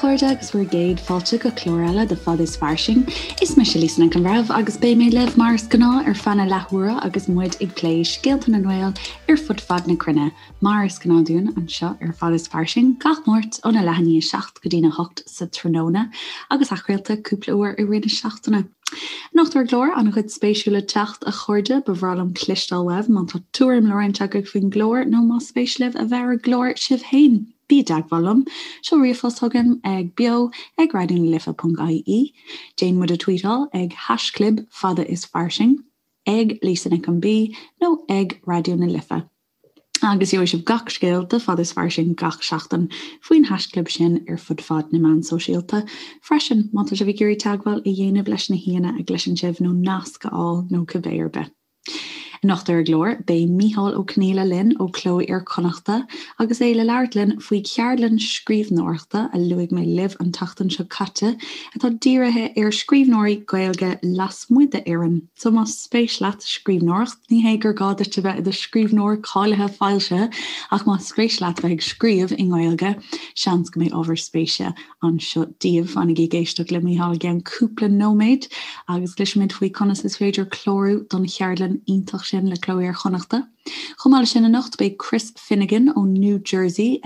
chairde agus bhur gcéad fáilte go clár eile de Fad is Fairsing. Is mise Lisa Nic an Bhreithimh agus beidh mé libh mar is gnáth ar feadh na leathuaire agus muid ag plé scéalta na nGael ar fud fad na cruinne. Mar is gnáth dúinn anseo ar Fad is Fairsing gach Máirt óna leath i ndiaidh 7 go dtína 8 sa tráthnóna agus athchraolta cúpla uair i rith na seachtaine. Anocht ar an gclár, an-chuid spéisiúil le teacht, a chairde, ba bhreá liom cloisteáil uaibh má tá tuairim le roinnt agaibh faoin gclár nó más spéis libh a bheith ar an gclár sibh féin. Bí i dteagmháil liom. Seol ríomhphost chugam ag beo ag raidionalife.ie. Déan muid a tweetáil ag haischlib fada is fairsing, ag Lisa Nic an B nó ag Raidió na Life. Agus gheobhaidh sibh gach scéal de Fad is Fairsing gach seachtain faoin haischlib sin ar fud fad na meán sóisialta freisin, má tá sibh ag iarraidh teagmháil a dhéanamh leis na haíonna a gcloiseann sibh nó nasc a fháil nó cibé ar bith. Anocht ar an gclár, beidh Micheál Ó Conghaile linn ó Cló Iar-Chonnachta agus é le labhairt linn faoi cheardlann scríbhneoireachta a luaigh mé libh an tseachtain seo caite atá dírithe ar scríbhneoirí Gaeilge lasmuigh d'Éirinn. So más spéis leat scríbhneoireacht, ní hé gur gá duit a bheith i do scríbhneoir cáilithe foilsithe, ach más spéis leat bheith ag scríobh i nGaeilge, seans go mbeidh ábhar spéise anseo daoibh. Fanaigí ag éisteacht le Mícheál i gceann cúpla nóiméad agus cloisfimid faoi conas is féidir clárú don cheardlann iontach sin le Cló Iar-Chonnachta. Chomh maith leis sin anocht beidh Chris Finnegan ó New Jersey,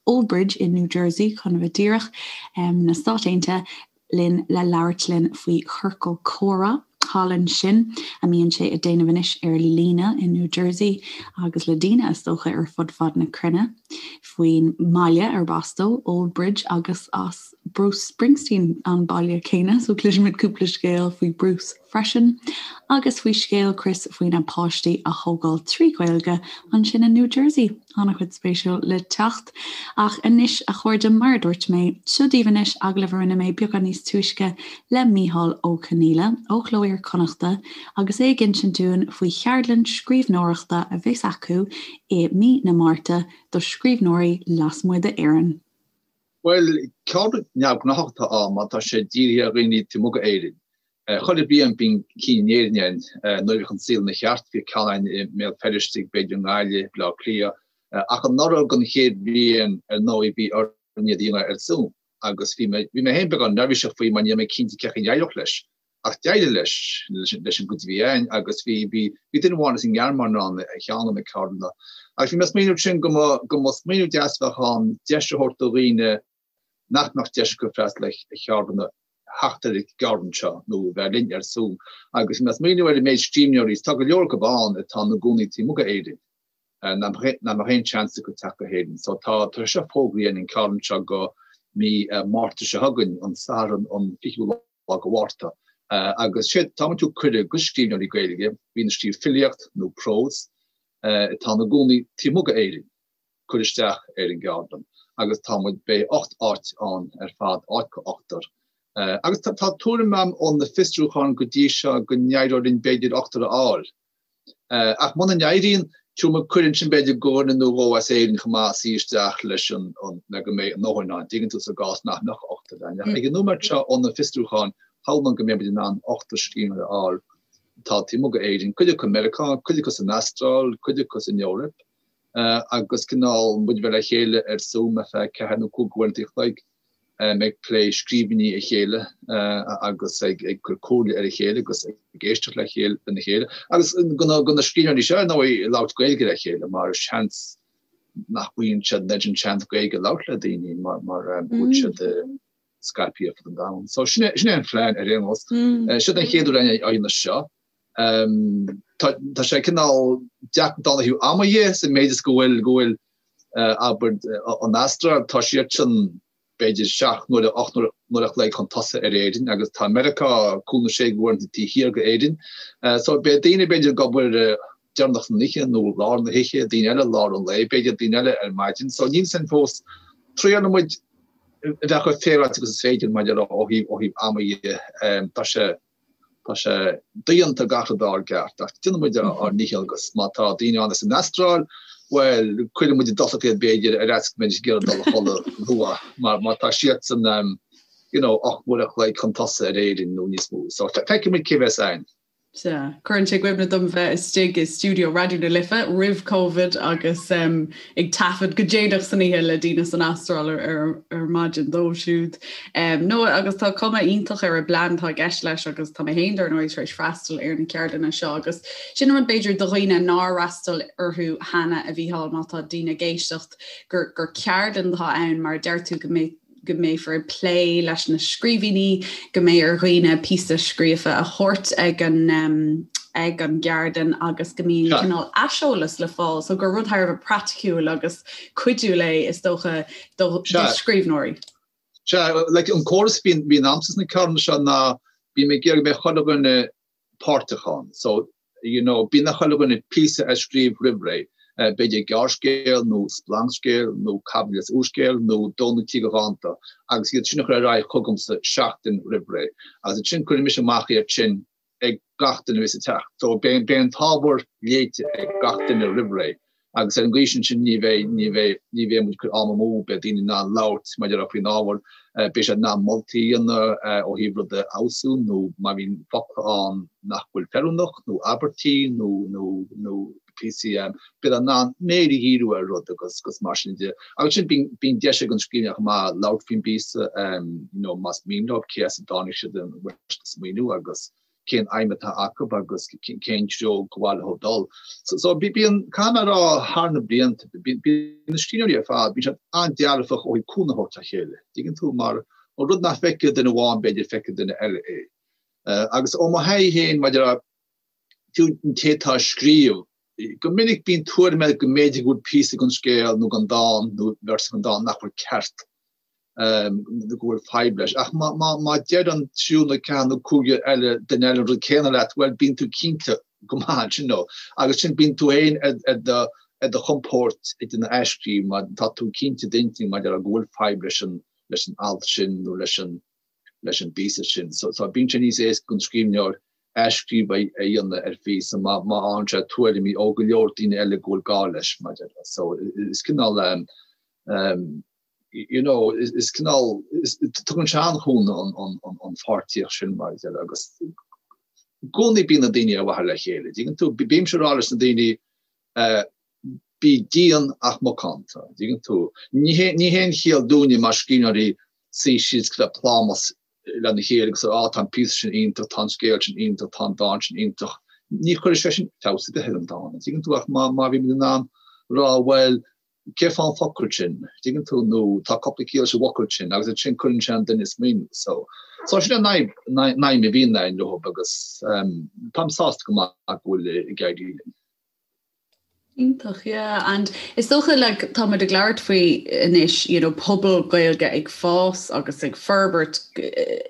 Old Bridge in New Jersey chun a bheith díreach, na Stáit Aontaithe, linn le labhairt linn faoi chiorcal comhrá thall ansin a mbíonn sé ag déanamh anois ar líne i New Jersey agus le daoine is dócha ar fud fad na cruinne faoin mbaile arb as dó, Old Bridge agus as Bruce Springsteen an baile céanna so cloisfimid cúpla scéal faoi Bruce freisin agus faoi scéal Chris faoina páistí a thógáil trí Ghaeilge ansin i New Jersey. An-chuid spéisiúil le teacht. Ach anois, a chairde, mar a dúirt mé, seo daoibh anois agallamh a rinne mé beagán níos túisce le Mícheál Ó Conghaile ó Chló Iar-Chonnachta agus é ag insint dúinn faoi cheardlann scríbhneoireachta a bheas acu i mí na Márta do scríbhneoirí lasmuigh d'Éirinn. Bhuel, ceardlann neamhghnáthach atá ann mar tá sé dírithe ar dhaoine taobh amuigh d'Éirinn. Chuile bhliain bíonn cinn in Éirinn ann. Nuair a bhíodh an saol ina cheart bhíodh ceann ann i mBéal Feirste, b'fhéidir i nGaillimh, Baile Átha Cliath. Ach anuraidh don chéad bhliain, ar ndóigh, bhí orainn iad a dhéanamh ar Zoom agus bhí mé féin beagán neirbhíseach faoi mar ní raibh mé cinnte cén chaoi a n-éireodh leis. Ach d'éirigh leis, leis an gcuid a bhí ann agus bhí, bhí, bhí duine amháin as an nGearmáin ann ar cheann de na ceardlanna. Agus bhí mé ag smaoineamh ansin go mba, go mba smaoineamh deas a bheadh ann deis a thabhairt do dhaoine nach mbeadh deis acu freastal ar cheardlanna theacht ar an gceardlann seo nó bheith linn ar Zoom. Agus bhí mé ag smaoineamh ar an méid scríbhneoirí, tá go leor acu ann atá ina gcónaí taobh amuigh d'Éirinn, nach mbeadh aon seans acu teacht go hÉirinn. So tá, tá sé seo fógraithe an ceardlann seo go mí Márta seo chugainn, an Satharn an 20ú lá. lá de Mhárta. Agus sé, tá muid ag tabhairt cuireadh go scríbhneoirí Gaeilge, a bhíonn ag scríobh filíocht nó prós, atá ina gcónaí taobh amuigh d'Éirinn, cur isteach ar an gceardlann. Agus tá muid, beidh 8 áit ann ar fad, áit go ochtar. Agus tá tuairim agam ó na fiosrúcháin go dtí seo go n-éireoidh linn b'fhéidir ochtar a fháil. Ach muna n-éiríonn, tabharfaidh muid cuireadh ansin b'fhéidir go dhuine nó dhó as Éirinn chomh maith suí isteach leis an, le go mbeidh a ndóthain ann, dtuigeann tú, sa gcás nach mbeadh ochtar ann. Ach ag an nóiméad seo ó na fiosrúcháin, shamhlóinn go mbeidh muid in ann ochtar scríbhneoir a fháil atá taobh amuigh d'Éirinn, cuid acu i Meiriceá, cuid acu san Astráil, cuid acu san Eoraip, agus cineál muid a bheith le chéile ar Zoom ar feadh ceathair nó cúig uaireanta a chloig. ag plé scríbhinní a chéile agus ag cur comhairle ar a chéile agus ag éisteacht le chéile lena chéile agus go na scríbhneoirí seo ar ndóigh ag labhairt Gaeilge le chéile mar seans nach bhfaigheann siad an oiread sin seans Gaeilge a labhairt le daoine mar mar go bhfuil siad scaipthe ar fud an domhain. So sin é sin é an phlean ar aon nós. Seo den chéad uair á dhéanamh seo. Tá tá sé cineál deacair ó thaobh ama dhe sa méid is go bhfuil go bhfuil abair, an Astráil, tá siadsan b'fhéidir 7 n-uaire, 8 n-uaire a chloig chun tosaigh ar Éirinn agus tá Meiriceá cúig nó sé uaireanta taobh thiar d'Éirinn. So beidh daoine b'fhéidir ag obair deireanach san oíche nó lár na hoíche, daoine eile lár an lae, b'fhéidir daoine eile ar maidin. So níl 'fhios a'inn fós. Triailfidh muid a bheith chomh féaráilte agus is féidir maidir le ó thaobh ó thaobh ama dhe. Tá sé Tá sé dodhéanta gach rud a fháil ceart, ach déanfaidh muid ár ndícheall agus má tá daoine ann as an Astráil, bhuel, cuirfidh muid i dtosach iad b'fhéidir ar fhaitíos go mbeidís ag iarraidh dul a chodladh luath, mar má tá siadsan, you know, 8 n-uaire a chloig chun tosaigh ar Éirinn nó níos mó. So, feicfidh muid cé bheas ann. Sea. Cuireann sé i gcuimhne dom bheith istigh i stiúideo Raidió na Life roimh Covid agus ag taifead go déanach san oíche le daoine san Astráil ar maidin dóibh siúd. No agus tá cuma iontach ar an bplean atá i gceist leis agus tá mé féin dar ndóigh tar éis freastal ar na ceardlanna seo agus sin an rud b'fhéidir do dhaoine nár fhreastail orthu cheana a Mhícheáil má tá daoine ag éisteacht gur gur ceardlann atá ann mar a deir tú go mbeidh go mbeifear ag plé leis na scríbhinní, go mbeidh ar dhaoine píosa scríofa a thabhairt ag an ag an gceardlann agus go mbíonn cineál aiseolas le fáil, so gur rud thar a bheith praiticiúil agus cuidiúil é is dócha do scríbhneoirí. Sea, like an córas a bhíonn a'msa sna ceardlanna seo ná bím ag iarraidh go mbeidh chuile dhuine páirteach ann. So, you know, bíonn ar chuile dhuine píosa a scríobh roimh ré, b'fhéidir gearrscéal nó splancscéal nó caibidil as úrscéal nó dó nó trí de dhánta, agus iad sin a chur ar aghaidh chugamsa seachtain roimh ré. Agus ansin cuirfidh mise amach iad sin ag gach duine a bheas ag teacht. So beidh an t-ábhar léite ag gach duine roimh ré. Agus ar an gcaoi sin sin ní bheidh, ní bheidh, ní bheidh muid ag cur am amú, beidh daoine in ann labhairt mar a déarfá faoin ábhar, beidh siad in ann moltaí a dhéanamh ó thaobh rud a fheabhsú nó má bhíonn focla ann nach bhfuil feiliúnach nó abairtí nó, nó, nó píosaí, beidh siad in ann méir a dhíriú ar rud agus, agus mar sin de. Agus sin bíonn, bíonn deis ag an scríbhneoir chomh maith labhairt faoin bpíosa, you know, más mian leo, cé as a dtáinig siad an bhfuil siad ag smaoineamh agus, cén aidhm atá acu agus cén treo gur mhaith leo dul. So bíonn, caithfidh mé a rá, thar na blianta, bíonn na scríbhneoirí ar fad, bíonn siad an-dearfach ó thaobh cúnamh a thabhairt dá chéile. Tuigeann tú, mar an rud nach bhfeicfidh duine amháin, b'fhéidir, feicfidh duine eile é. Agus ó mo thaithí féin, maidir le fiú an té atá ag scríobh, go minic bíonn tuairim air go mb'fhéidir go bhfuil píosa den scéal nó den dán nó véarsa den dán nach bhfuil ceart. nó go bhfuil fadhb leis. Ach má deir an triúr nó ceathair nó cúigear eile duine eile an rud céanna leat, bhuel, bíonn tú cinnte go maith ansin nó. Agus sin, bíonn tú féin ar do ar do chompord ag déanamh athscríobh má tá tú cinnte d'intinn maidir le go bhfuil fadhb leis an leis an alt sin nó leis an leis an bpíosa sin. So so bíonn sé níos éasca don scríbhneoir athscríobh a dhéanamh ar phíosa má má fhaigheann sé tuairimí ó go leor daoine eile go bhfuil gá leis maidir le. So is cineál you know, is cineál, tugann sé an-chúnamh an pháirtíocht sin mar a déarfá agus i gcónaí bíonn na daoine ar mhaithe le chéile. Dtuigeann tú, bímse ag rá leis na daoine bí dian ach macánta, dtuigeann tú. Ní haon chiall dúinne mar scríbhneoirí suí síos go bheith plámás lena chéile agus á tá an píosa sin iontach, tá an scéal sin iontach, tá an dán sin iontach. Ní chuirfidh sé sin feabhas ar bith ar an dán, dtuigeann tú, ach má bhímid in ann rá bhuel, cé fán focal sin, dtuigeann tú, nó tá cúpla ciall sa bhfocal sin agus ansin cuireann sé an duine ag smaoineamh. So, so sin an aidhm a bhíonn againn leo agus táim sásta go maith go bhfuil ag éirí linn. Iontach, yeah. And is dócha like tá muid ag labhairt faoi anois, you know, pobal Gaeilge ag fás agus ag forbairt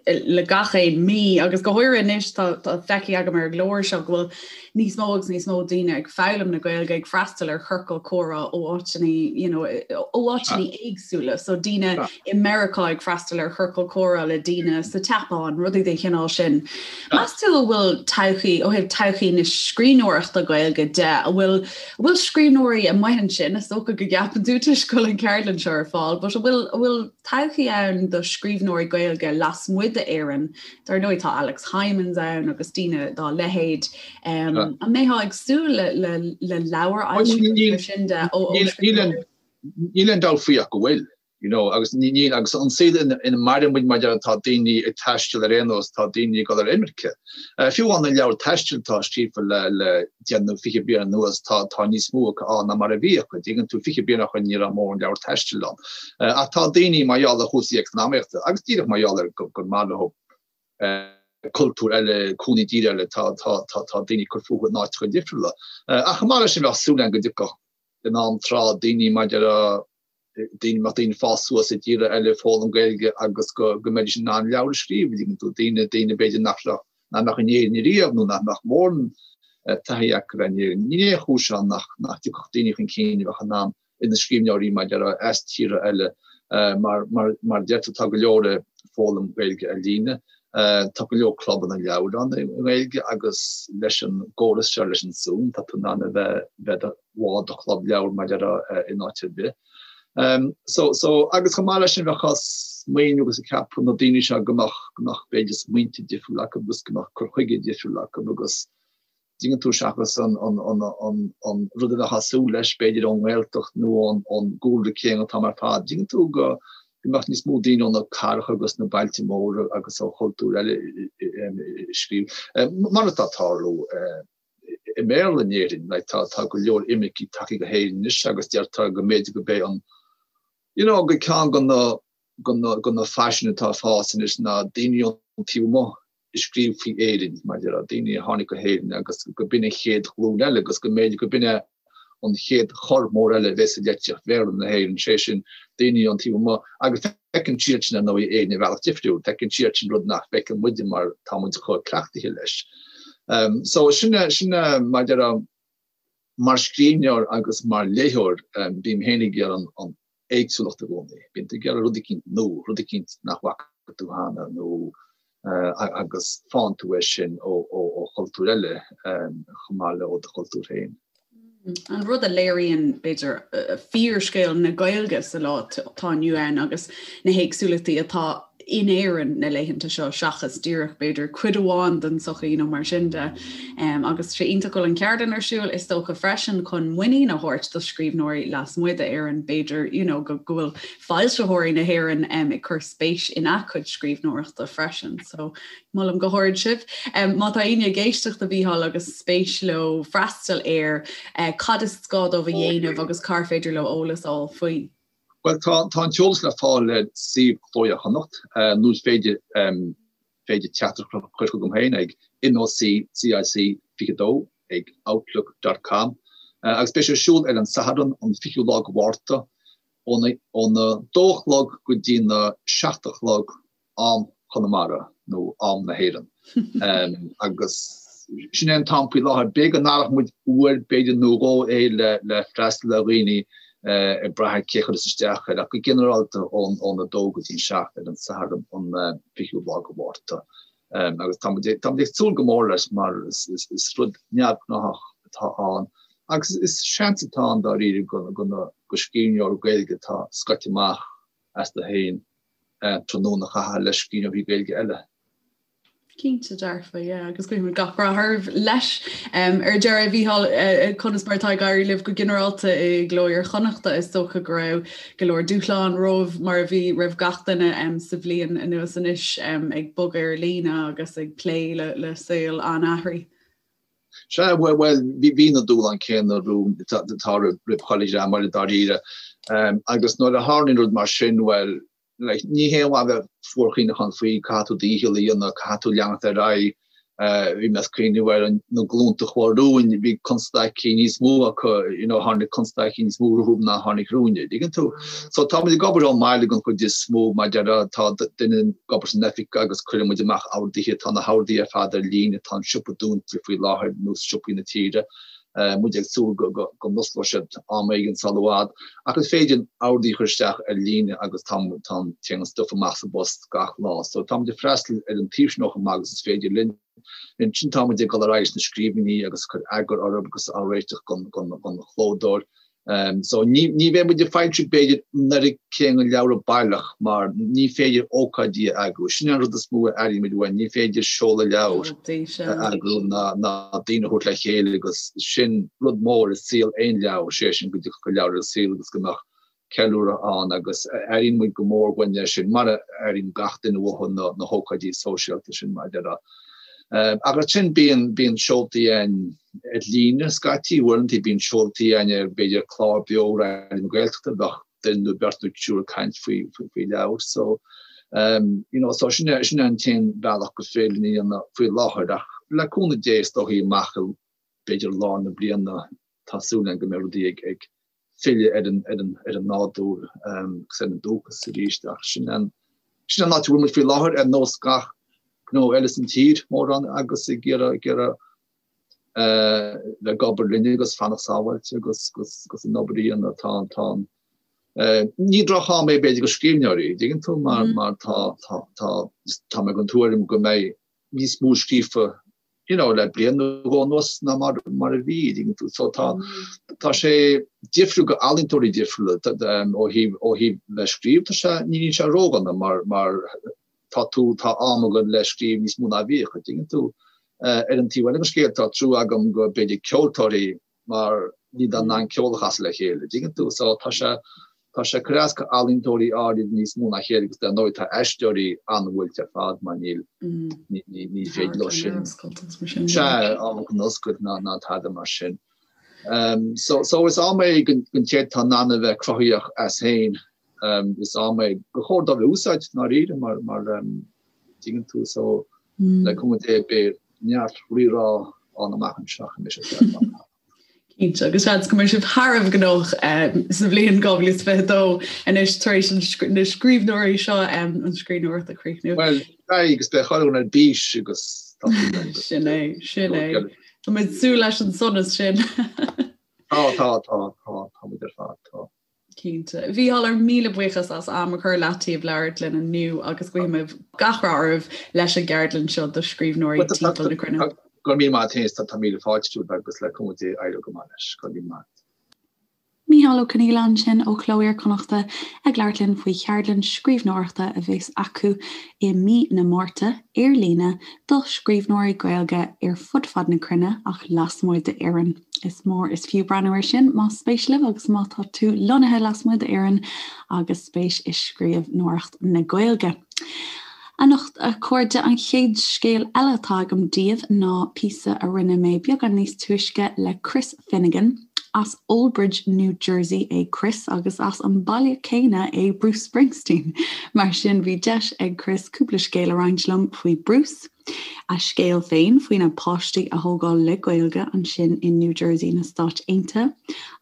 le gach aon mí agus go háirithe anois tá tá feicthe agam ar an gclár seo go bhfuil níos mó agus níos mó daoine ag foghlaim na Gaeilge, ag freastal ar chiorcal comhrá ó áiteanna, you know, ó áiteanna éagsúla. So daoine i Meiriceá ag freastal ar chiorcal comhrá le daoine sa tSeapáin, rudaí den chineál sin. Meas tú an bhfuil todhchaí, ó thaobh todhchaí na scríbhneoireachta Gaeilge de, an bhfuil, an bhfuil scríbhneoirí amuigh ansin, is dócha go gceapann tú toisc go bhfuil an cheardlann seo ar fáil, but an bhfuil, an bhfuil todhchaí ann do scríbhneoirí Gaeilge lasmuigh d'Éirinn Dar ndóigh tá Alex Hijmans ann agus daoine dá leithéid. An mbeifeá ag súil le leabhair a fhoilsiú mar sin de ó scríbhneoirí? Níl aon dabht faoi ach go bhfuil, you know, agus níl, agus an saol ina maireann muid mar tá daoine ag taisteal ar aon nós, tá daoine ag dul ar imirce. Fiú amháin na leabhair taistil atá scríofa le le deich nó 20 bliain anuas, tá tá níos mó acu ann ná mar a bhí acu. Dtuigeann tú, 20 bliain ó shin ní raibh mórán leabhar taistil ann. Ach tá daoine mar gheall ar chúrsaí eacnamaíochta agus díreach mar gheall ar gur maith leo cultúr eile, cónaí i dtír eile, tá tá tá tá daoine ag cur fúthu in áiteacha difriúla. Ach chomh maith leis sin bheadh súil agam go dtiocfadh in am tráth daoine maidir a daoine mbeadh daoine ag fás suas i dtíortha eile ag foghlaim Gaeilge agus go go mbeidís in ann leabhar a scríobh, an dtuigeann tú, daoine daoine b'fhéidir nach raibh nach mbeadh in Éirinn ariamh nó nach mbeadh mórán taithí acu ar Éirinn. Níl aon chúis ann nach nach dtiocfadh daoine chun cinn a bheadh in ann ina scríbhneoirí maidir le as tíortha eile mar mar mar a deir tú tá go leor ag foghlaim Gaeilge ar líne. Tá go leor clubanna leabhar ann i nGaeilge agus leis an gcóras seo leis an Zoom tá tú in ann a bheith bheith bhall de chlub leabhar maidir in áit ar bith. So so agus chomh maith leis sin bheadh. smaoineamh agus ag ceapadh na daoine seo go mbeadh, go mbeadh b'fhéidir smaointe difriúla acu agus go mbeadh cur chuige difriúil acu agus dtuigeann tú seachas an, an, an, an, an rud a bheifeá ag súil leis b'fhéidir ón nGaeltacht nó ón, ón gcúlra céanna atá mar fad. Dtuigeann tú go, go mbeadh níos mó daoine ó na cathracha agus na bailte móra agus ó chultúir eile ag scríobh. Mar atá ag tarlú i mBéarla in Éirinn, like tá, tá go leor imircigh tagtha go hÉirinn anois agus deirtear go mb'fhéidir go b'é an, you know, go ceann de na, de na, de na faisin atá ag fás anois ná daoine ón taobh amuigh ag scríobh faoi Éirinn, mar a déarfá, daoine a tháinig go hÉirinn agus go b'in an chéad ghlúin eile agus go mb'fhéidir go b'in é an chéad chor mór eile a bheas i litríocht Bhéarla na hÉireann, sé sin, daoine ón taobh amuigh agus feiceann siadsin, ar ndóigh, Éirinn ar bhealach difriúil, feiceann siadsin rud nach bhfeiceann muide mar tá muid chomh cleachtaithe leis. So sin é, sin é, mar a déarfá, mar scríbhneoir agus mar léitheoir, bím féin ag iarraidh an éagsúlacht i gcónaí. Bíonn tú ag iarraidh rud eicínt nua, rud eicínt nach bhfaca tú cheana nó agus faigheann tú é sin ó chultúir eile chomh maith le ó do chultúr féin. An rud a léiríonn, b'fhéidir, fíorscéal na Gaeilge sa lá atá inniu ann agus na héagsúlachtaí atá in Éirinn na laethanta seo seachas díreach, b'fhéidir, cuid amháin den tsochaí nó mar sin de. Agus sé iontach go bhfuil an cheardlann ar siúl, is dócha freisin chun muinín a thabhairt do scríbhneoirí lasmuigh d'Éirinn, b'fhéidir, you know, go bhfuil foilsitheoirí na hÉireann ag cur spéis ina gcuid scríbhneoireachta freisin. So molaim go hard sibh. Má tá éinne ag éisteacht a Mhícheáil agus spéis leo freastal air, cad is gá dóibh a dhéanamh agus cár féidir leo eolas a fháil faoi? Bhuel, tá an t-eolas le fáil ar suíomh Chló Iar-Chonnacht, nó is féidir féidir teachtaireacht a chur chugam féin ag noccic22 ag outlook dot com agus beidh sé ar siúl ar an Satharn an 20ú lá de Mhárta óna óna dó a chlog go dtí na seacht a chlog am Chonamara nó am na hÉireann. Agus sin é an t-am faoi láthair. B'fhéidir go n-athróidh muid uair b'fhéidir nó dhó é le freastal ar dhaoine ag brath ar cé a chuireas isteach air ach go ginearálta óna dó go dtí an 7 ar an Satharn an 20ú lá de Mhárta. Agus tá muid ag súil go mór leis mar is rud neamhghnáthach atá ann agus is seans atá ann dáiríre do scríbhneoir Gaeilge atá scoite amach astu féin tráthnóna a chaitheamh le scríbhneoirí Gaeilge eile. Cinnte dearfa, yeah, agus guímid gach rath oraibh leis. Ar deireadh, a Mhícheáil, conas mar atá ag éirí libh go ginearálta i gCló Iar-Chonnachta? Is dócha go raibh go leor dúshlán romhaibh mar a bhí roimh gach duine sa bhliain anuas anois ag bogadh ar líne agus ag plé le saol an-athraithe. Sea, bhuel, bhí na dúshláin céanna romhainn atá roimh chuile dhream eile dáiríre. Agus nuair a tharlaíonn rud mar sin, bhuel, like, ní haon mhaith bheith fuarchaoineachán faoi, caithfidh tú do dhícheall a dhéanamh, caithfidh tú leanacht ar aghaidh. Bhí mé ag cuimhneamh ar na glúnta a chuaigh romhainn, bhí constaicí níos mó acu, you know, tháinig constaicí níos mó rompu ná tháinig romhainne, an dtuigeann tú? So tá muid ag obair ón mbaile den chuid is mó, mar a déarfá, tá duine ag obair san oifig agus cuireann muid amach orduithe, tá na horduithe ar fad ar líne, tá an siopa dúnta faoi láthair, nós siopaí na tíre, muid ag súil go n-osclóidh siad am éigin sul i bhfad, ach is féidir orduithe a chur isteach ar líne agus tá, tá, téann an stuif amach sa bpost gach lá. So tá muid ag freastal ar an taobh sin chomh maith agus is féidir linn. Ansin tá muid ag dul ar aghaidh leis na scríbhinní agus ag cur eagar orthu agus á réiteach don, don, don chlódóir. So ní ní bheidh muid ag foilsiú b'fhéidir an oiread céanna leabhra baileach mar ní féidir ócáidí a eagrú. Sin an rud is mó a airímid uainn, ní féidir seoladh leabhar a eagrú ná ná daoine a thabhairt le chéile agus sin rud mór i saol aon leabhar, sé sin go dtiocfadh an leabhar ar an saol agus go mbeadh ceiliúradh ann agus airíonn muid go mór uainn é sin mar a airíonn gach duine uathu na na hócáidí sóisialta sin mar a déarfá. Ach ansin bíonn bíonn seoltaí ann ar líne scaití, uaireanta bíonn seoltaí ann ar b'fhéidir clár beo Raidió na Gaeltachta, bheadh duine nó beirt nó triúr ag caint faoi faoi leabhar. So you know so sin é sin é an t-aon bhealach gur féidir linn a dhéanamh faoi láthair ach le cúnamh Dé is dóichí amach i b'fhéidir lár na bliana tá súil againn go mbeidh rudaí ag ag filleadh ar an ar an ar an nádúr agus ar an dúchas arís ach sin an sin an áit a bhfuil muid faoi láthair ar nós gach gnó eile san tír mórán agus ag iarraidh ag iarraidh bheith ag obair linn agus fanacht sábháilte agus agus an obair a dhéanamh tá tá ní droch-am é b'fhéidir do scríbhneoirí, dtuigeann tú mar mar tá tá tá tá mé den tuairim go mbeidh níos mó scríofa. you know, le bliain nó dhó anuas ná mar mar a bhí, tuigeann tú. So tá tá sé difriúil go ealaíontóirí difriúla ó thaobh ó thaobh le scríobh tá sé ní níl sé ródhona mar mar tá tú tá am agat le scríobh níos mó ná bhíodh, tuigeann tú. Ar an taobh eile den scéal tá trua agam go b'fhéidir ceoltóirí mar níl siad in ann ceol a chasadh le chéile, dtuigeann tú? So tá sé, tá sé ag cur as go ealaíontóirí áirid níos mó ná a chéile agus dar ndóigh tá aisteoirí an-bhuailte ar fad mar níl, ní, ní, ní féidir leo sin, sea, amharclann oscailt ná, ná tada mar sin. Um, so, so is am é don, don té atá in ann a bheith cruthaíoch as féin, um, is am é gur chóir dóibh a úsáid ndáiríre mar, mar, um, dtuigeann tú, so le cúnamh Dé beidh neart rírá ann amach anseo anois is eile. Cinnte, agus seans go mbeidh sibh thar a bheith gnóthach sa bhliain 2022 anois tar éis na scríbhneoirí seo an scríbhneoireacht a chríochnú. Bhuel, beidh agus beidh chuile dhuine ar bís agus Sin é, sin é. Tá muid ag súil leis an sonas sin. Tá, tá, tá, tá, tá muid ar fad, tá. Cinnte. A Mhícheáil, ár míle buíochas as am a chur leataobh labhairt linn inniu agus guímid gach rath oraibh leis an gceardlann seo do scríbhneoirí timpeall na cruinne. Go raibh míle maith agat féin, tá míle fáilte romhat agus le cúnamh Dé éireoidh go maith leis. Go raibh míle maith. Mícheál Ó Conghaile ansin ó Chló Iar-Chonnachta ag labhairt linn faoi cheardlann scríbhneoireachta a bheas acu i mí na Márta, ar líne, do scríbhneoirí Gaeilge ar fud fad na cruinne ach lasmuigh d'Éirinn. Is mór is fiú breathnú air sin más spéis libh agus má tá tú lonnaithe lasmuigh d'Éirinn agus spéis i scríbhneoireacht na Gaeilge. Anocht, a chairde, an chéad scéal eile atá agam daoibh ná píosa a rinne mé beagán níos túisce le Chris Finnegan. As Old Bridge, New Jersey é Chris agus as an baile céanna é Bruce Springsteen. Mar sin bhí deis ag Chris cúpla scéal a roinnt liom faoi Bruce, a scéal féin faoina páistí a thógáil le Gaeilge ansin in New Jersey na Stáit Aontaithe,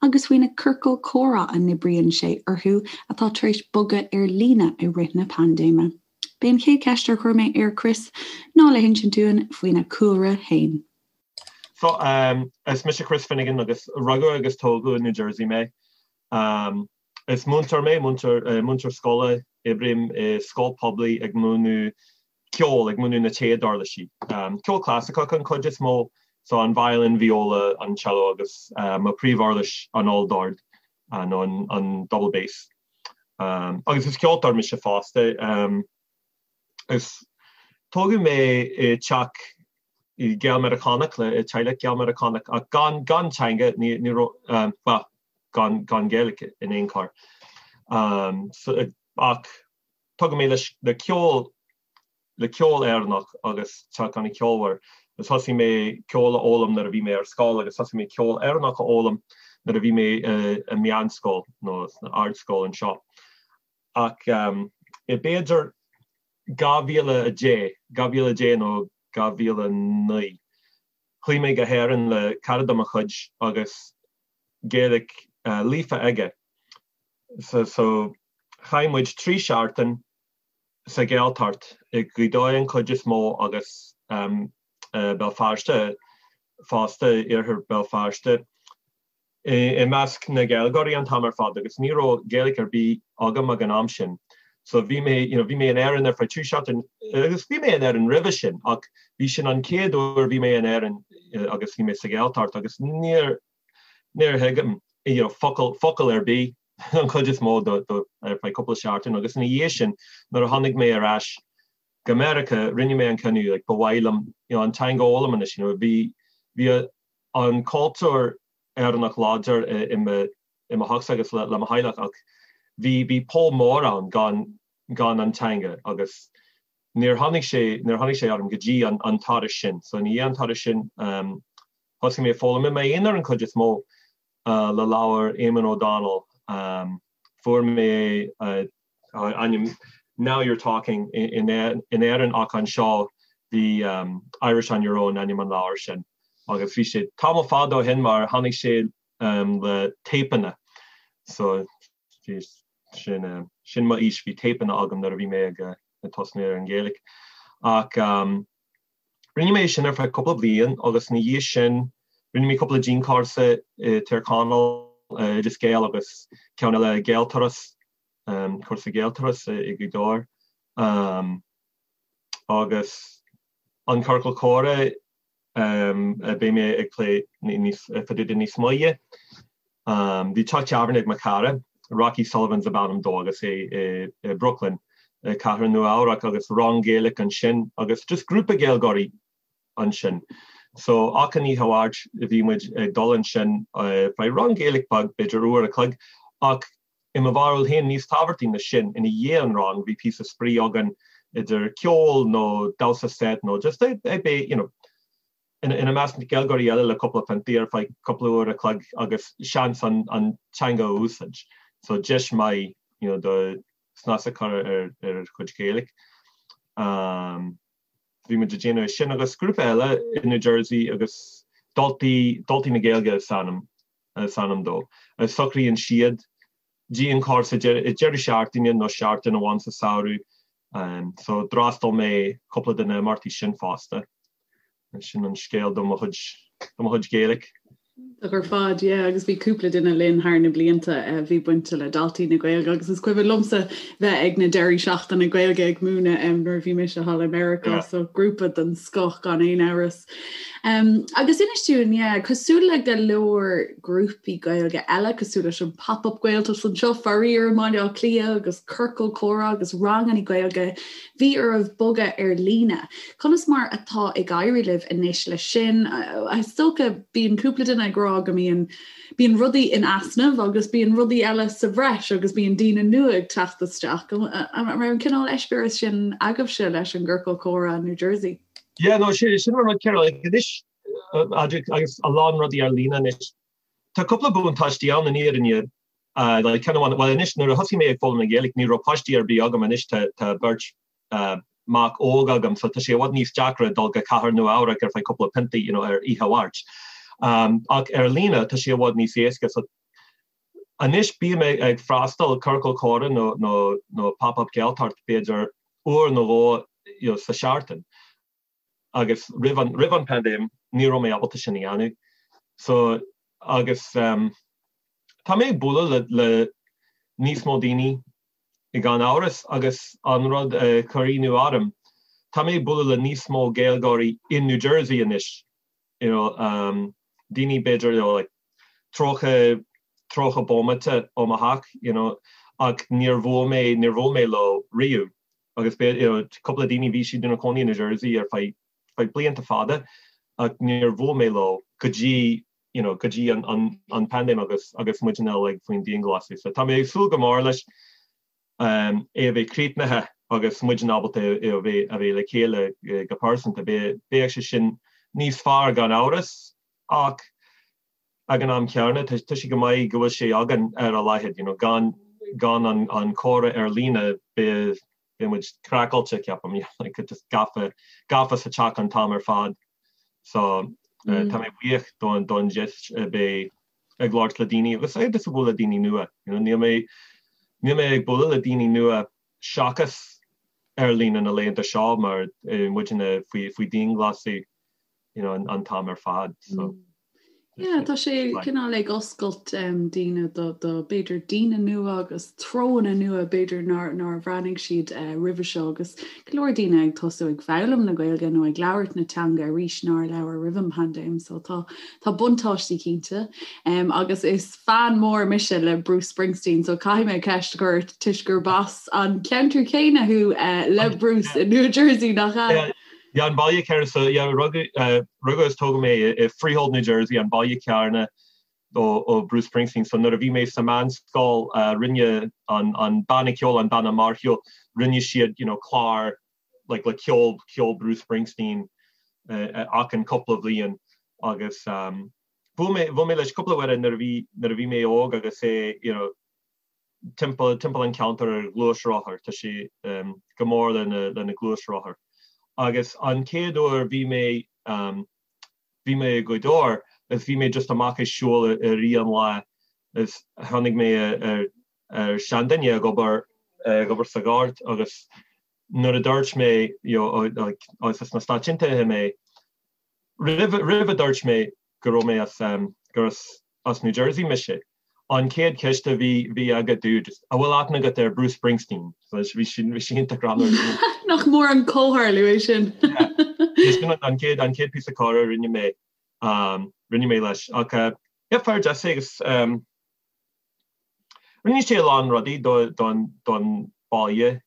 agus faoi na ciorcail comhrá a n-oibríonn sé orthu atá tar éis bogadh ar líne i rith na paindéime. B'é an chéad cheist ar chuir mé ar Chris ná le hinsint dúinn faoina chúlra féin. So, is mise Chris Finnegan agus rugadh agus tógadh i New Jersey mé. Is múinteoir mé, múinteoir, múinteoir scoile, oibrím i scoil poiblí ag múineadh ceol, ag múineadh na téaduirlisí. Ceol clasaiceach an chuid is mó, so an violin, viola, an cello agus mo príomhuirlis an olldord nó an double bass. Agus is ceoltóir mise fosta. Is tógadh mé i teach Gael-Meiriceánach le teaghlach Gael-Meiriceánach ach gan gan teanga, ní ní raibh, bhuel, gan gan Gaeilge in aon chor. Ach tógadh mé leis le ceol le ceol Éireannach agus teach an-cheolmhar. Agus thosaigh mé ceol a fhoghlaim nuair a bhí mé ar scoil agus thosaigh mé ceol Éireannach a fhoghlaim nuair a bhí mé i meánscoil nó sna ardscoil anseo. Ach i b'fhéidir 2010, 2010 nó 2009, chuaigh mé go hÉirinn le cara de mo chuid agus Gaeilge líofa aige. So so chaith muid 3 seachtain sa Ghaeltacht, i Gaoth Dobhair an chuid is mó agus Béal Feirste fosta, iarthar Béal Feirste, i measc na Gaeilgeoirí an t-am ar fad agus ní raibh Gaeilge ar bith agam ag an am sin. So bhí mé, you know, bhí mé in Éirinn ar feadh 3 seachtain agus bhí mé in Éirinn roimhe sin ach bhí sin an chéad uair bhí mé in Éirinn agus bhí mé sa Ghaeltacht agus níor, níor thuig you know, focal, focal ar bith an chuid is mó do, do, ar feadh cúpla seachtain agus ina dhiaidh sin nuair a tháinig mé ar ais go Meiriceá rinne mé an cinneadh like, ba mhaith liom you know, an teanga a fhoghlaim anois you know, bhí, bhí an cultúr Éireannach láidir i, i mo, i mo theachsa agus le, le mo theaghlach ach bhí, bhí poll mór ann gan, gan an teanga agus níor tháinig sé, níor tháinig sé orm go dtí an, an turas sin. So ina dhiaidh an turas sin um, thosaigh mé ag foghlaim i m'aonar an chuid is mó le leabhar Eamon O'Donnell. Fuair mé é ainm Now You're Talking in Éirinn ach anseo bhí Irish on Your Own ainm an leabhair sin agus bhí sé tamall fada ó shin mar tháinig sé le téipeanna so bhí sin sin mo aois bhí téipeanna agam nuair a bhí mé ag tosnú ar an Ghaeilge ach Rinne mé sin ar feadh cúpla bliain agus ina dhiaidh sin rinne mé cúpla dianchúrsa i Tír Chonaill, Oideas Gael agus ceann eile Gaelturas, cúrsa Gaelturas i Gaoth Dobhair. Agus an Ciorcal Comhrá. Beidh mé ag plé níos fá dtaobh de níos moille. Bhí teach tábhairne ag mo chara, Rocky Sullivan ab ainm dó agus é i Brooklyn, cathair Nua Eabhrac agus rang Gaeilge ansin agus just grúpa Gaeilgeoirí ansin. So achan oíche Mháirt bhí muid ag dul ansin feadh rang Gaeilge beag, b'fhéidir uair a chloig, ach i mo bharúil féin níos tábhachtaí na sin, ina dhiaidh an rang bhí píosa spraoi againn idir ceol nó damhsa set nó just ag bheith you know ina measc na Gaeilgeoirí eile le cúpla piontaí ar feadh cúpla uair a chloig agus seans an an teanga a úsáid. So deis maith you know do snas a chur ar ar chuid Gaeilge. Um, bhí muid ag déanamh sin agus grúpa eile i New Jersey agus Daltaí Daltaí na Gaeilge is ainm is ainm dó. Socraíonn siad dianchúrsa deireadh seachtaine nó seachtain amháin sa samhradh. So d'fhreastail mé cúpla de na imeachtaí sin fosta. Sin an scéal do mo chuid do mo chuid Gaeilge. Iontach ar fad, yeah, agus bhí cúpla duine linn thar na blianta a bhí bainte le Daltaí na Gaeilge agus is cuimhin liomsa bheith ag na deirí seachtaine Gaeilge ag múineadh nuair a bhí mise thall i Meiriceá, so grúpa den scoth gan aon amhras. Agus inis dúinn, yeah, cosúil le go leor grúpaí Gaeilge eile, cosúil leis an Pop Up Gaeltacht anseo faraor i mBaile Átha Cliath agus Ciorcal Comhrá agus ranganna Gaeilge, bhí oraibh bogadh ar líne. Conas mar atá ag éirí libh anois leis sin? Is dócha, bíonn cúpla duine ag rá go mbíonn bíonn rudaí in easnamh agus bíonn rudaí eile sa bhreis agus bíonn daoine nua ag teacht isteach. An raibh an cineál eispéireas sin agaibhse leis an gCiorcal Comhrá in New Jersey? Yeah, no, sin sin an rud céanna, like, anois, agus a lán rudaí ar líne anois. Tá cúpla buntáistí ann in fhírinne, like, ceann amháin, well anois nuair a thosaigh mé ag foghlaim na Gaeilge ní raibh páistí ar bith agam, anois tá tá beirt mac óg agam so tá sé i bhfad níos deacra dul go cathair Nua Eabhrac ar feadh cúpla piontaí, you know, ar oíche Mháirt. Ach ar líne tá sé i bhfad níos éasca so anois bím ag freastal ciorcal comhrá nó nó nó pop-up Gaeltacht b'fhéidir uair nó dhó you know, sa seachtain agus roimh an roimh an paindéim ní raibh mé ábalta sin a dhéanamh. So agus um, tá mé ag bualadh le, le níos mó daoine gan amhras agus an rud a chuir ionadh orm, tá mé ag bualadh le níos mó Gaeilgeoirí in New Jersey anois you know, um, daoine b'fhéidir you know, like, 30 30 bomaite ó mo theach you know, ach níor bhuail mé níor bhuail mé leo riamh agus you know, cúpla daoine bhí siad ina cónaí in New Jersey ar feadh feadh blianta fada ach níor bhuail mé leo go dtí you know, go dtí an, an, an paindéim agus agus muid uilig faoin dianghlasáil. So tá mé ag súil go mór leis um, é a bheith críochnaithe agus muid ábalta é a bheith a bheith le chéile go pearsanta. Beidh sé sin níos fearr gan amhras ach ag an am céanna tá sé go maith go bhfuil sé againn ar a laghad, you know, gan gan an, an comhrá ar líne beidh beidh muid craiceáilte ceapaim, you know, like, just gafa gafa sa teach an t-am ar fad. So uh, tá mé buíoch don don deis a bheith ag labhairt le daoine agus ag just bualadh le daoine nua. You know, níl mé níl mé ag bualadh le daoine nua seachas ar líne na laethanta seo mar eh, muidne faoi faoi dianghlasáil you know, an, an t-am ar fad. So. Mm. Yeah, tá sé cineál ag oscailt um, daoine do, do b'fhéidir daoine nua agus treonna nua b'fhéidir nár, nár bhreathnaigh siad uh, roimhe seo agus go leor daoine ag tosú ag foghlaim na Gaeilge nó ag labhairt na teanga arís nár labhair roimh an paindéim, so tá tá buntáistí cinnte. Um, agus is fan mór mise le Bruce Springsteen, so caithfidh mé ceist a chur ort toisc gurb as an ceantar céanna thú uh, le Bruce in New Jersey nach ea? Yeah. Yeah, an baile céanna so yeah, rugadh uh, rugadh is tógadh mé i Freehold, New Jersey, an baile céanna ó, ó Bruce Springsteen. So nuair a bhí mé sa meánscoil uh, rinne an, an banna ceoil, an banna mórshiúil, rinne siad you know, clár like, le ceol, ceol Bruce Springsteen uh, achan cúpla bhliain agus um, bhuail mé, bhuail mé leis cúpla uair nuair a bhí, nuair a bhí mé óg agus é you know, timpeall timpeall an ceantar ar ghluaisrothar, tá sé go mór lena lena ghluaisrothar. Agus an chéad uair bhí mé bhí mé i Gaoth Dobhair is bhí mé just amach ag siúl i rith an lae is tháinig mé ar ar seanduine ag obair ag obair sa ghort agus nuair a dúirt mé you know like as na Stáit Aontaithe mé roimh roimh a dúirt mé go raibh mé as gur as as New Jersey mise. An chéad cheist a bhí bhí aige dude, an bhfuil aithne agat ar Bruce Springsteen? So bhí sin bhí sé iontach greannmhar. Nach mór an comhtharlú é sin. Sin an chéad an chéad píosa comhrá a rinne mé rinne mé leis ach yeah fear deas é agus rinne sé a lán rudaí don don baile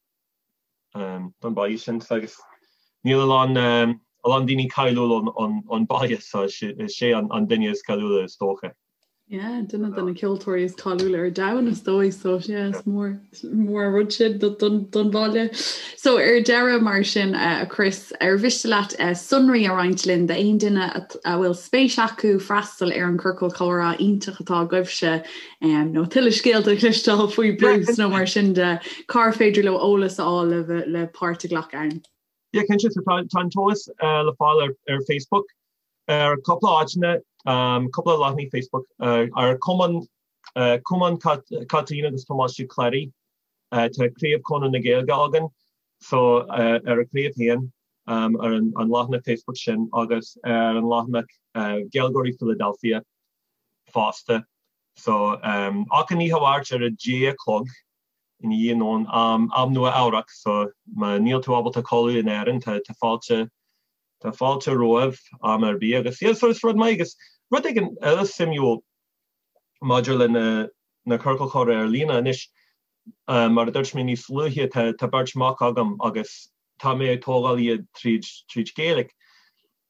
don baile sin agus níl a lán a lán daoine cáiliúil ón baile so is é an duine is cáiliúla is dócha. Yeah, duine de na ceoltóirí is cáiliúla ar domhan is dóigh so yeah, is mór mór an rud sin don don bhaile. So ar deireadh mar sin uh, a Chris, ar mhiste leat uh, sonraí a roinnt linn d'aon duine a bhfuil spéis acu freastal ar an ciorcal comhrá iontach atá agaibhse um, nó tuilleadh scéalta a chloisteáil faoi Bruce nó mar sin de cár féidir leo eolas a fháil le, le páirt a ghlacadh ann. Yeah, cinnte so tá tá an t-eolas uh, le fáil ar, ar Facebook ar cúpla áiteanna, um, cúpla leathanaigh Facebook uh, ar Cumann uh, Cumann Caitríona agus Tomás Uí Chléirigh uh, tá craobh Chonradh na Gaeilge againn so uh, ar a craobh féin um, ar an, an leathanach Facebook sin agus ar an leathanach uh, Gaeilgeoirí Philadelphia fosta. So um, achan oíche Mháirt ar a deich a chlog i ndiaidh nóin am, am Nua Eabhrac so má níl tú ábalta codladh in Éirinn tá, tá fáilte Tá fáilte romhaibh am ar bith agus yeah so is rud maith agus rud éigin eile suimiúil maidir le na na ciorcail chomhrá ar líne anois mar a dúirt mé níos luaithe tá tá beirt mac agam agus tá mé ag tógáil iad tríd tríd Gaeilge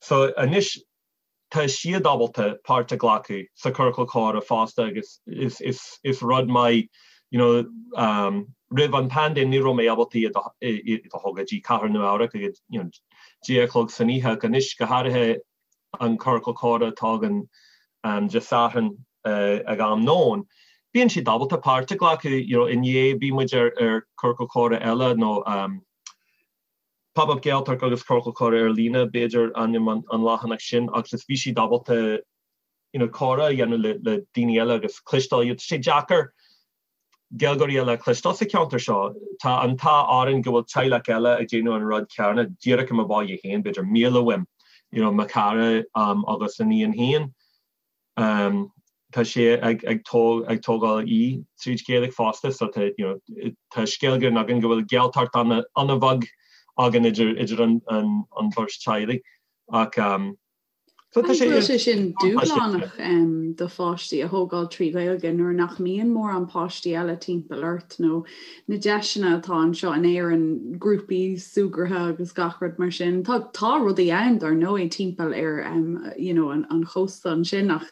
so anois tá siad ábalta páirt a ghlacadh sa ciorcal comhrá fosta agus is is is rud maith you know um roimh an paindéim ní raibh mé ábalta iad a iad a thógáil go dtí cathair Nua Eabhrac ag you know deich a chlog san oíche ach anois go háirithe an ciorcal comhrá atá againn um Dé Sathairn uh ag am nóin bíonn siad ábalta páirt a ghlacadh you know inné bhí muid ar ar ciorcal comhrá eile nó um Pop Up Gaeltacht agus Ciorcal Comhrá ar Líne, b'fhéidir ainm an leathanach sin, agus bhí siad ábalta you know comhrá a dhéanamh le le daoine eile agus cloisteáil iad. Tá sé deacair Gaeilgeoirí eile a chloisteáil sa cheantar seo. Tá an t-ádh orainn go bhfuil teaghlach eile ag déanamh an rud céanna díreach i mo bhaile féin, b'fhéidir míle uaim, you know mo chara um agus a níon féin. Tá sé ag ag tógáil í tríd Gaeilge fosta so tá you know tá scéal grinn againn go bhfuil Gaeltacht an-bheag againn idir idir an an bheirt teaghlaigh ach so tá sé sé sin dúshlánach do pháistí a thógáil trí Ghaeilge nuair nach mbíonn mórán páistí eile timpeall ort nó na deiseanna atá anseo in Éirinn, grúpaí súgartha agus gach rud mar sin. Tá tá rudaí ann dar ndóigh timpeall ar um, you know, an, an chósta ansin ach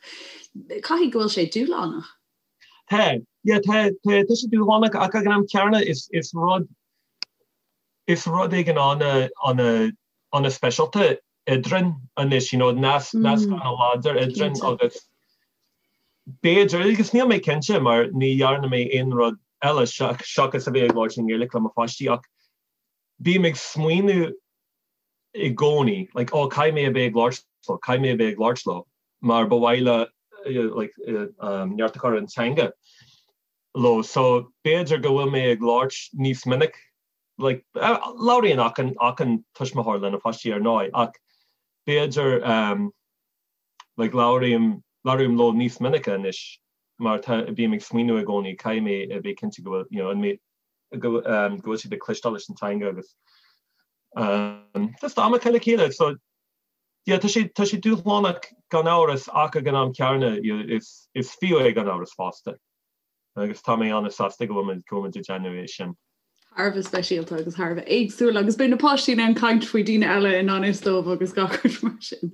caithfidh go bhfuil sé dúshlánach. Tá, yeah, tá, tá, tá sé dúshlánach ach ag an am céanna is, is rud is rud éigin ana ana ana speisialta eadrainn anois, you know, nasc nasc mm. ana láidir eadrainn agus b'fhéidir, agus níl mé cinnte mar ní dhearna mé aon rud eile seachas a bheith ag labhairt i nGaeilge le mo pháistí ach bím ag smaoineamh i gcónaí, like, oh, caithfidh mé a bheith ag labhairt leo, caithfidh mé a bheith ag labhairt leo mar ba mhaith le like, um, neart a chur an teanga leo. So b'fhéidir go bhfuil mé ag labhairt níos minic like, labhraíonn achan, achan tuismitheoir lena pháistí ar ndóigh ach b'fhéidir um, like, labhraím, labhraím leo níos minice anois mar tá, bím ag smaoineamh i gcónaí caithfidh mé a bheith cinnte go bhfuil, you know, an mé, go, um, go bhfuil siad ag cloisteáil leis an teanga agus um, just am a chaitheamh le chéile. So, yeah, tá sé, tá sé dúshlánach gan amhras ach ag an am céanna is, is fiú é gan amhras fosta. agus tá mé an-sásta go bhfuil go bhfuil muid ag déanamh é sin. Thar a bheith speisialta agus thar a bheith éagsúil agus beidh na páistí in ann caint faoi daoine eile i ngan fhios dóibh agus gach rud mar sin.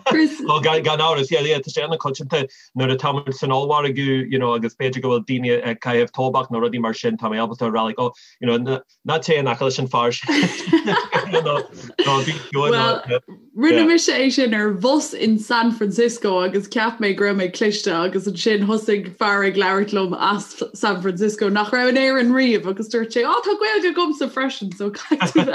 Chris. Well, gan gan amhras, yeah, yeah, tá sé an-choitianta nuair atá muid san ollmhargadh, you know, agus b'fhéidir go bhfuil daoine ag caitheamh tobac nó rudaí mar sin, tá mé ábalta a rá like, oh, you know, ná téigh in aice leis an fear sin. Nó nó bí ciúin nó Well, Rinne mise é sin ar bhus in San Francisco agus cheap mé go raibh mé cliste agus ansin thosaigh fear ag labhairt liom as San Francisco nach raibh in Éirinn riamh agus dúirt sé, "Á tá Gaeilge agamsa freisin, so caithfidh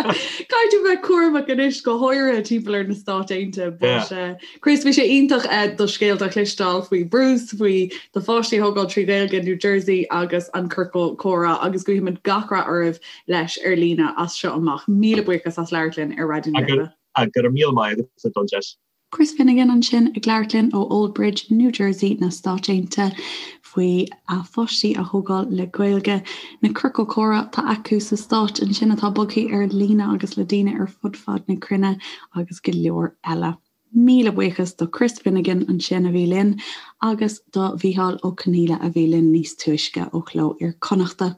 tú bheith cúramach anois go háirithe timpeall ar na Stáit Aontaithe. But uh, Chris, bhí sé iontach uh, do scéalta a chloisteáil faoi Bruce, faoi do pháistí a thógáil trí Ghaeilge in New Jersey agus an ciorcal comhrá agus guímid gach rath oraibh leis ar líne as seo amach. Míle buíochas as labhairt linn ar Raidió na Life. Go raibh míle maith agat don deis. Chris Finnegan ansin ag labhairt linn ó Old Bridge, New Jersey na Stáit Aontaithe. faoi a pháistí a thógáil le Gaeilge, na ciorcail comhrá atá acu sa Stáit ansin atá bogtha ar líne agus le daoine ar fud fad na cruinne agus go leor eile. Míle buíochas do Chris Finnegan ansin a bhí linn agus do Mhícheál Ó Conghaile a bhí linn níos túisce ó Chló Iar-Chonnachta.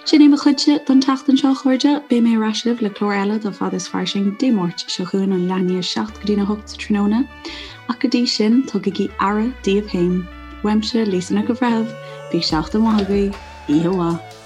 Sin é mo chuidse don tseachtain seo, a chairde. Beidh mé ar ais libh le clár eile de Fad is Fairsing Dé Máirt seo chugainn ón leath i ndiaidh 7 go dtína 8 sa tráthnóna. Ach go dtí sin, tugaigí aire daoibh féin. Uaimse, Lisa Nic an Bhreithimh, bíodh seachtain mhaith agaibh, oíche mhaith.